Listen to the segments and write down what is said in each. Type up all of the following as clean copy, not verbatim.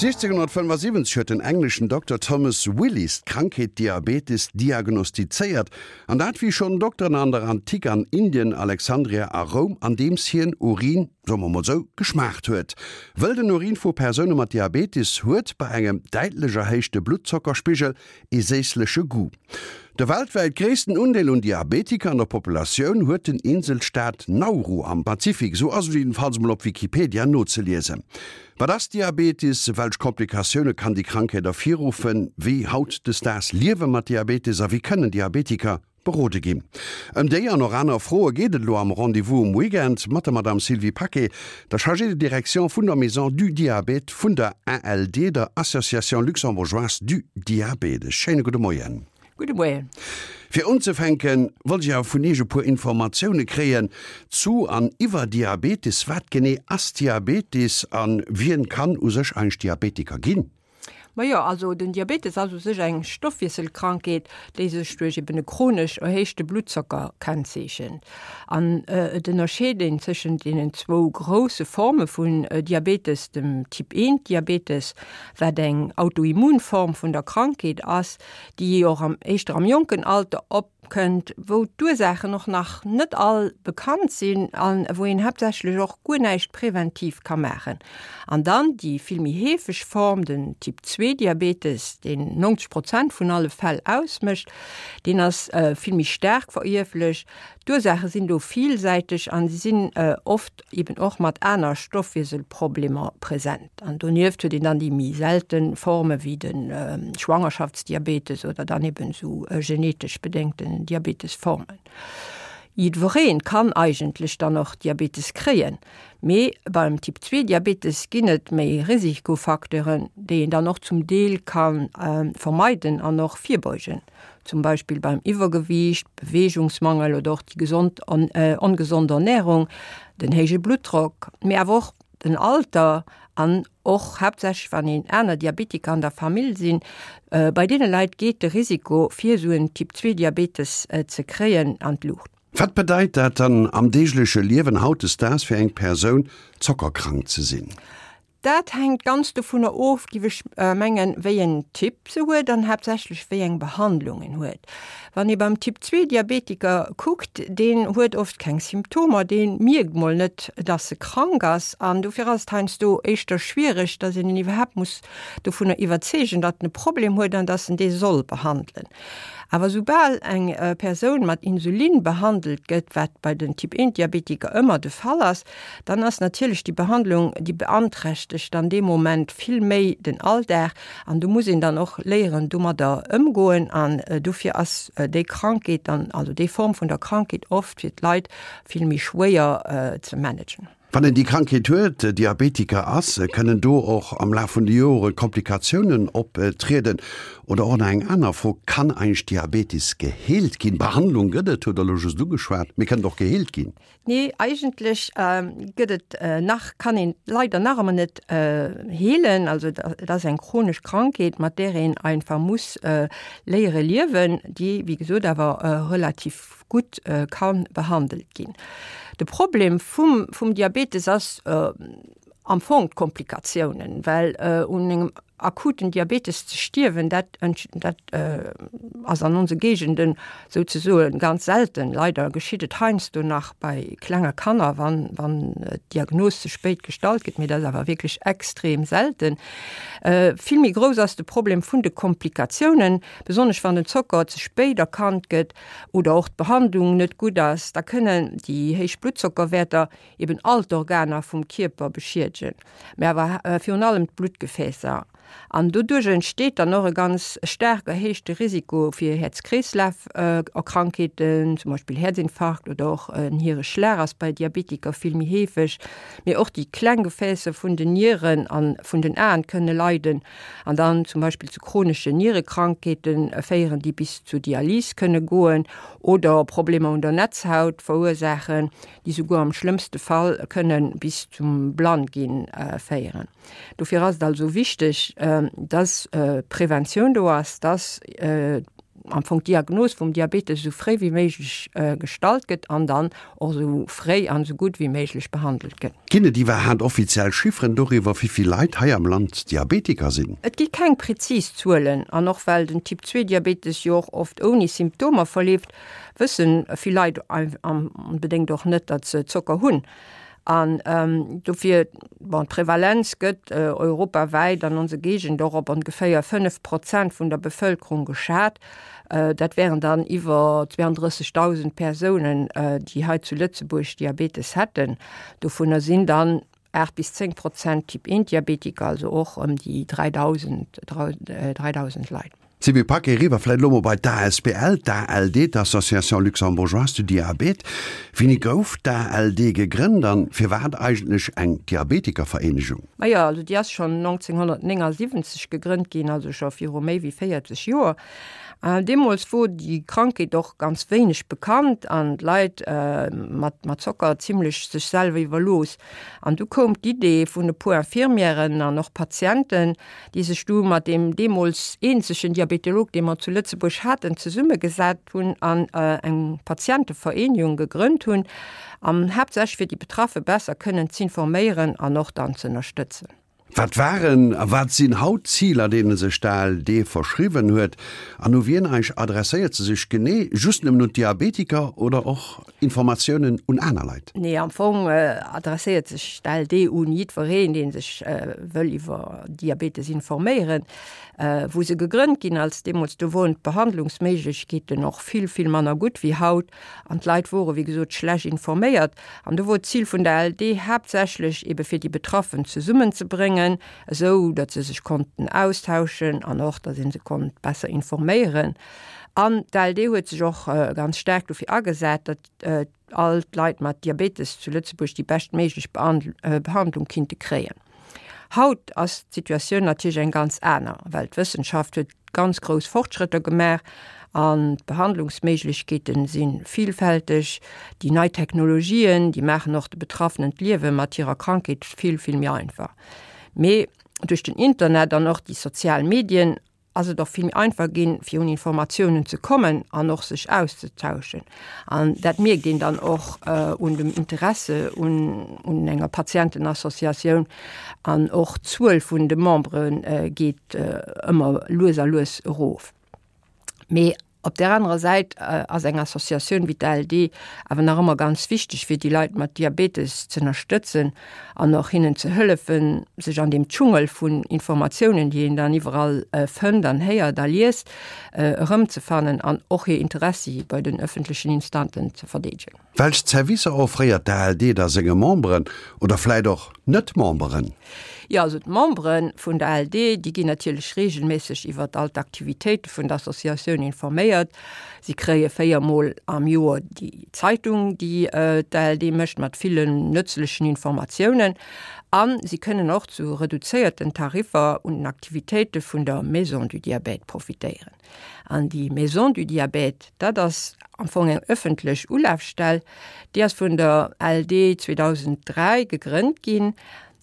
1675 huet den engleschen Dokter Thomas Willis d'Krankheet Diabetes diagnostizéiert, an dat wéi schonn Dokteren an der Antik an Indien, Alexandria a Roum, andeems hien Urin, soe mer mol sou, geschmaacht huet. Wëll den Urin vu Persoune mat Diabetes huet bei engem däitlech erhéichte Bluttzockerspigel ee séissleche Goût. De weltwäit gréissten Undeel un Diabetiker an der Populatioun huet den Inselstaat Nauru am Pazifik, sou ass et jiddenfalls mol op Wikipedia nozeliesen. Wat ass Diabetes? Welch Komplikatioune kann déi Krankheet ervirruffen? Wéi hautdesdaags liewe mat Diabetes a wéi kënnen Diabetiker berode ginn? Ëm déi an och aner Froe geet et elo am Rendez-vous um Weekend mat der Madame Sylvie Paquet, der Chargée de direction vun der Maison du Diabète vun der ALD, der Association Luxembourgeoise du Diabète. E schéine gudde Moien. Gudde Moien. Fir unzefänken, wollt ech awer vun Iech e puer Informatioune kréien zu an iwwer Diabetes. Wat genee ass Diabetes a wien kann u sech eigentlech Diabetiker ginn? Majo, also den Diabetes ass u sech eng Stoffwiesselkrankheet, déi sech duerch eben e chronesch erhéichte Bluttzocker kennzeechent. An et ënnerscheet een tëschent deenen zwou grousse Forme vun Diabetes, dem Typ I Diabetes, wat eng Autoimmunform vun der Krankheet ass, déi och am éischter am jonken Alter op kënnt, wou d'Ursaachen och nach net all bekannt sinn a wou een haaptsächlech och guer näischt präventiv ka maachen. An dann déi vill méi heefeg Form, den Typ 2 Diabetes, deen 90 Prozent vun alle Fäll ausmécht, deen ass vill méi staark verierflech. D'Ursaache sinn do villsäiteg a si sinn oft eben och mat aner Stoffwieselproblemer present. An donieft huet een dann déi méi selte Forme wéi de Schwangerschaftsdiabetes oder dann eben esou genetesch bedéngten Diabetesformen. Jiddweree kann eigentlech dann och Diabetes kréien, mee beim Typ 2 Diabetes ginn et méi Risikofacteuren, déi een dann och zum Deel ka vermeiden an och virbeugen. zum Beispill beim Iwwergewiicht, Beweegungsmangel oder och déi gesond ongesond Ernärung, den héije Bluttdrock, mee awer och den Alter an och haaptsächlech wann een aner Diabetiker an der Famill sinn. Bei deene Leit geet de Risiko fir esou en Typ 2 Diabetes ze kréien an d'Luucht. Wat bedeit dat dann am deegleche Liewen hautdesdaags fir eng Persoun zockerkrank ze sinn? Dat hänkt ganz dovunner of, giff ech mengen, wéi en Typ se huet an haaptsächlech wéi eng Behandlung en huet. Wann ee beim Typ 2 Diabetiker kuckt, deen huet oft keng Symptomer, dee mierkt mol net, dass e krank ass an dofir ass et heiansdo éischter schwiereg, dass een en iwwerhaapt muss dovunner iwwerzeegen, datt en e Problem huet an dass en dee soll behandelen. Awer soubal eng Persoun mat Insulin behandelt gëtt, wat bei den Typ 1 Diabetiker ëmmer de Fall ass, dann ass natierlech déi Behandlung, déi beanträchtegt dann dee Moment vill méi den Alldag an do muss een dann och léieren domadder ëmgoen an dofir ass déi Krankheet dann, also déi Form vun der Krankheet oft fir d'Leit vill méi schwéier ze managen. Wann een déi Krankheet huet, Diabetiker ass, kënnen do och am Laf vun de Jore Komplikatiounen optrieden? Oder och nach eng aner Fro, Kann eigentlech Diabetes geheelt ginn? Behandlung gëtt et, hutt Der elo just ugeschwat, mee kënnt och geheelt ginn? Nee, eigentlech gëtt et nach, kann een leider nach ëmmer net heelen. Also et ass eng chronesch Krankheet, mat där een einfach muss léiere liewen, déi wéi gesot awer relativ gutt ka behandelt ginn. De Problem vum, vum Diabetes ass am Fong d'Komplikatiounen, well un engem akuten Diabetes ze stierwen, dat, dat ass an onse Géigenden souzesoen ganz selten. Leider geschitt et heiansdo nach bei klenge Kanner, wann, wann d'Diagnos ze spéit gestallt gëtt, mee dat ass awer wierklech extrem selten. Vill méi grouss ass de Problem vun de Komplikatiounen, besonnesch wann den Zocker ze spéit erkannt gëtt oder och d'Behandlung net gutt ass, da kënnen déi héich Bluttzockerwäerter eben all d'Organer vum Kierper beschiedegen, mä awer virun allem d'Bluttgefäässer. An doduerch entsteet dann och e ganz staark erhéichte Risiko fir Häerz-Kreeslaf-Erkrankheeten, zum Beispill Häerzinfarkt oder och en Hiereschlag ass bei Diabetiker vill méi heefeg. Mee och déi kleng Gefäässer vun den Nieren a vun den Aen kënne leiden. an dann zum Beispill zu chroneschen Nierekrankheete féieren, déi bis zur Dialys kënne goen oder Problemer un der Netzhaut verursaachen, déi souguer am schlëmmste Fall kënne bis zum Blannginn féieren. Dofir ass et also wichteg, dass Preventioun do ass, dass. am Fong d'Diagnos vum Diabetes esou fréi wéi méiglech gestallt gëtt an dann och esou fréi an esou gutt wéi méiglech behandelt gëtt. Ginn et iwwerhaat offiziell Chifferen doriwwer, wéi vill Leit hei am Land Diabetiker sinn? Et gi keng prezis Zuelen an och well den Typ 2 Diabetes jo och oft ouni Symptomer verleeft, wëssen vill Leit onbedéngt och net, datt se Zocker hunn. An dofir, bon, d'Prevalenz gëtt europawäit an onser Géigend och op ongeféier 5 Prozent vun der Bevëlkerung geschat. Dat wären dann iwwer 32.000 Persounen, déi hei zu Lëtzebuerg Diabetes hätten. Dovunner sinn dann 8 bis 10 Prozent Typ 1 Diabetiker, also och ëm déi 3.000, 3.000 Leit. Sylvie Paquet, Eriwwer vläit elo mol bei d'ASBL, d'ALD, d'Association Luxembourgeoise du Diabète. Wéini gouf d'ALD gegrënnt an firwat eigentlech eng Diabetikervereenegung? Majo, also déi ass schonn 1979 gegrënnt ginn, also scho viru méi wéi 40 Joer. Deemools wor déi Krankheet och ganz wéineg bekannt an d'Leit mat mat Zocker zimlech sech selwer iwwerlooss. An du koum d'Idee vun e puer Infirmièren an och Patienten, déi sech du mat deem deemools eenzegen Diabetolog, dee mer zu Lëtzebuerg haten, zesummegesat hunn an eng Patientevereenegung gegrënnt hunn, an haaptsächlech fir déi Betraffe besser kënnen z'informéieren an och dann z'ënnerstëtzen. Wat waren a wat sinn haut d'Ziler, deene sech d'ALD verschriwwen huet, an u wien eigentlech adresséiert se sech genee? Just nëmmen un d'Diabetiker oder och Informatiounen un aner Leit? Nee, am Fong adresséiert sech d'ALD un jiddwereen, dee sech wëll iwwer Diabetes informéieren. Wou se gegrënnt ginn ass, deemools, do woren d'Behandlungsméiglechkeeten och vill, vill manner gutt wéi haut an d'Leit wore wéi gesot schlecht informéiert. An do wor d'Zil vun der ALD haaptsächlech ebe fir déi Betraffen zesummenzebréngen, esou datt se sech konnten austauschen an och datt ee se konnt besser informéieren. An d'ALD huet sech och ganz staark dofir agesat, datt all d'Leit mat Diabetes zu Lëtzebuerg déi beschtméiglech Behandlung kinnte kréien. Haut ass d'Situatioun natierlech eng ganz aner, well d'Wëssenschaft huet ganz grouss Fortschrëtter gemaach an d'Behandlungsméiglechkeete si villfälteg. Déi nei Technologien, déi maachen och de Betraffenen d'Liewe mat hirer Krankheet vill, vill méi einfach. Mee duerch den Internet an och déi sozial Medien ass et och vill méi einfach ginn, fir un Informatiounen ze kommen an och sech auszetauschen. An dat mierkt een dann och un dem Interesse un un enger Patientenassociatioun an och d'Zuel vun de Membere geet ëmmer lues a lues erof. Mee Op där anerer Säit ass eng Associatioun wéi d'ALD awer nach ëmmer ganz wichteg, fir déi Leit mat Diabetes z'ënnerstëtzen an och hinnen ze hëllefen, sech an deem Dschungel vun Informatiounen, déi een dann iwwerall fënnt an héiert a liest, erëmzefannen an och hir Interessi bei den ëffentlechen Instanten ze verdeedegen. Welch Zerwisser offréiert d'ALD da senge Memberen oder vläit och Net-Memberen? Jo, also d'Membere vun der ALD, déi ginn natierlech reegelméisseg iwwer all d'Aktivitéite vun der Associatioun informéiert. Si kréie 4 Mol am Joer déi Zeitung, déi d'ALD mécht, mat villen nëtzlechen Informatiounen. A si kënnen och zu reduzéierten Tariffer un den Aktivitéite vun der Maison du Diabète profitéieren. An déi Maison du Diabète, dat ass am Fong eng ëffentlech Ulafstell, déi ass vun der ALD 2003 gegrënnt ginn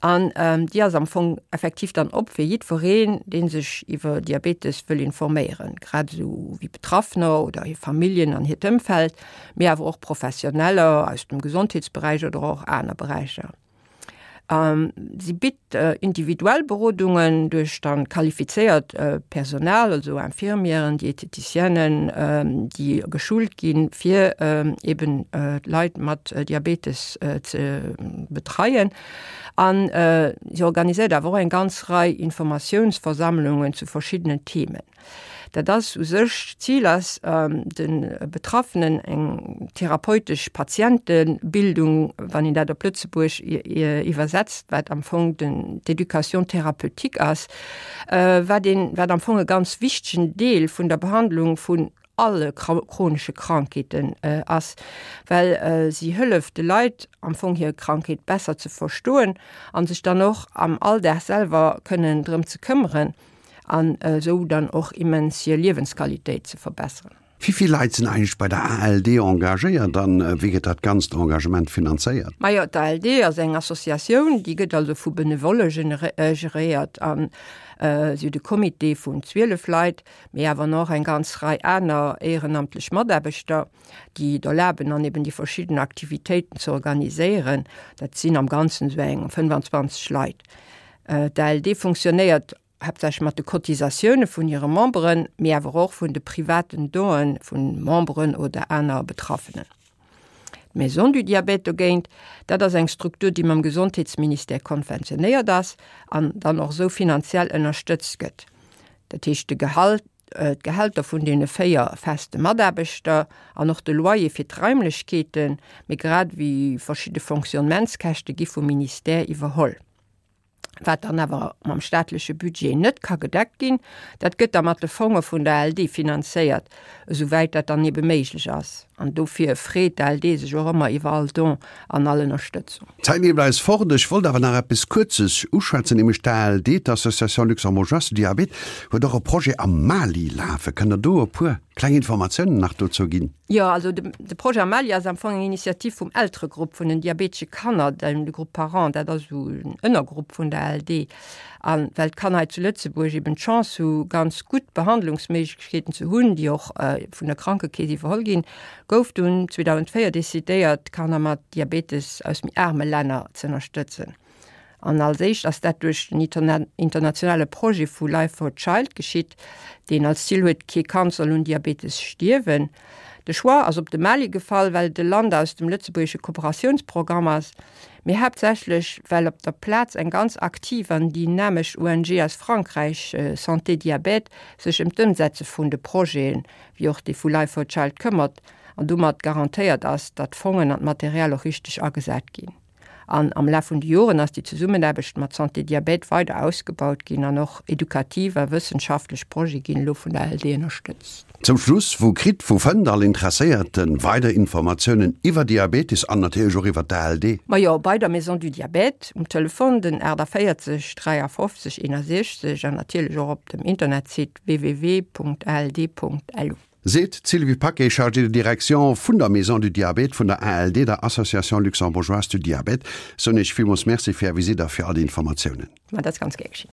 an déi ass am Fong effektiv dann op fir jiddwereen, dee sech iwwer Diabetes wëll informéieren, grad esou wéi Betraffener oder hir Familljen an hiert Ëmfeld, mee awer och Professioneller aus dem Gesondheetsberäich oder och aner Beräicher. Si bitt individuell Berodungen duerch dann qualifizéiert Personal, also Infirmieren, Dieteticienen, déi geschult ginn, fir eben d'Leit mat Diabetes ze betreien. An si organiséiert awer och eng ganz Rei Informatiounsversammlungen zu verschiddenen Themen. Dat ass u sech, d'Zil ass, de Betraffenen eng therapeutesch Patientebildung, wann een dat op Lëtzebuerg iwwersetzt, wat am Fong den d'Éducation thérapeutique ass, wat een, wat am Fong e ganz wichtegen Deel vun der Behandlung vun alle chronesche Krankheeten ass, well si hëlleft de Leit am Fong hir Krankheet besser ze verstoen a sech dann och am Alldag selwer kënnen drëm ze këmmeren. An esou dann och immens hir Liewensqualitéit ze verbesseren. Wéi vill Leit sinn eigentlech bei der ALD engagéiert an wéi gëtt dat ganzt Engagement finanzéiert? Majo, d'ALD ass eng Associatioun, déi gëtt also vu Benevolle geréiert an si huet e Comité vun 12 Leit, mee awer nach eng ganz Rei aner éierenamtlech Mataarbechter, déi et erlaben an eben déi verschidden Aktivitéiten ze organiséieren. Dat sinn am Ganzen esou eng 25 Leit. D'ALD funktionéiert haaptsächlech mat de Cotisatioune vun hire Memberen, mee awer och vun de privaten Donë vu Memberen oder aner Betraffenen. D'Maison du Diabète dogéint, dat ass eng Struktur, déi mam Gesondheetsministère konventionéiert ass an dann och esou finanziell ënnerstëtzt gëtt. Dat heescht, de Gehalt, d'Gehälter vun deene 4 feste Mataarbechter an och de Loyer fir d'Raimlechkeeten, mee grad ewéi verschidde Fonctionnementskäschte gi vum Ministère iwwerholl. Wat dann awer mam staatleche Budget net ka gedeckt ginn, dat gëtt da mat de Fonge vun der ALD finanzéiert, esouwäit dat dann ebe méiglech ass. An dofir freet d'ALD sech och ëmmer iwwer all Don an all Ënnerstëtzung. D'Zäit leeft eis fort. Ech wollt awer nach eppes Kuerzes uschwätzen, nämlech d'ALD, d'Association Luxembourgeoise du Diabète, huet och e Projet am Mali lafen. Kënnt Der do e puer kleng Informatiounen nach dozou ginn? Jo, also de Projet am Mali ass am Fong eng Initiativ vum Elteregrupp vun den diabetesche Kanner, de Groupe Parents, dat ass esou en Ënnergrupp vun der ALD. A well d'Kanner hei zu Lëtzebuerg eben d'Chance hu ganz gutt Behandlungsméiglechkeeten ze hunn, déi och vun der Krankekeess iwwerholl ginn, gouf dunn 2004 decidéiert, d'Kanner mat Diabetes aus méi aarme Länner z'ënnerstëtzen. An als éischt ass dat duerch den internationale Projet vu Life for Child geschitt, deen als Zil huet, kee Kand soll un Diabetes stierwen. De Choix ass op de Mali gefall, well et e Land aus dem lëtzebuergesche Kooperatiounsprogramm ass, mee haaptsächlech well op der Plaz eng ganz aktiv an dynamesch ONG aus Frankräich, Santé Diabète, sech ëm d'Ëmsetze vun de Projeten, wéi och dee vu Life for Child, këmmert an domat garantéiert ass, datt d'Fongen an d'Material och richteg agesat ginn. An am Laf vun de Joren ass déi Zesummenaarbecht mat Santé Diabète weider ausgebaut ginn an och edukativ a wëssenschaftlech Projete ginn elo vun der ALD ënnerstëtzt. Zum Schluss, Wou kritt, wou fënnt all Interesséierte weider Informatiounen iwwer Diabetes an natierlech och iwwer d'ALD? Majo, bei der Maison du Diabète um Telefon den 48 53 61 an natierlech och op dem Internetsite www.ald.lu. Seet d'Sylvie Paquet, Chargée de direction vun der Maison du Diabète vun der ALD, der Association Luxembourgeoise du Diabète. Soen Iech villmools Merci fir Är Visitt a fir all déi Informatiounen. Ma dat ass ganz gär geschinn.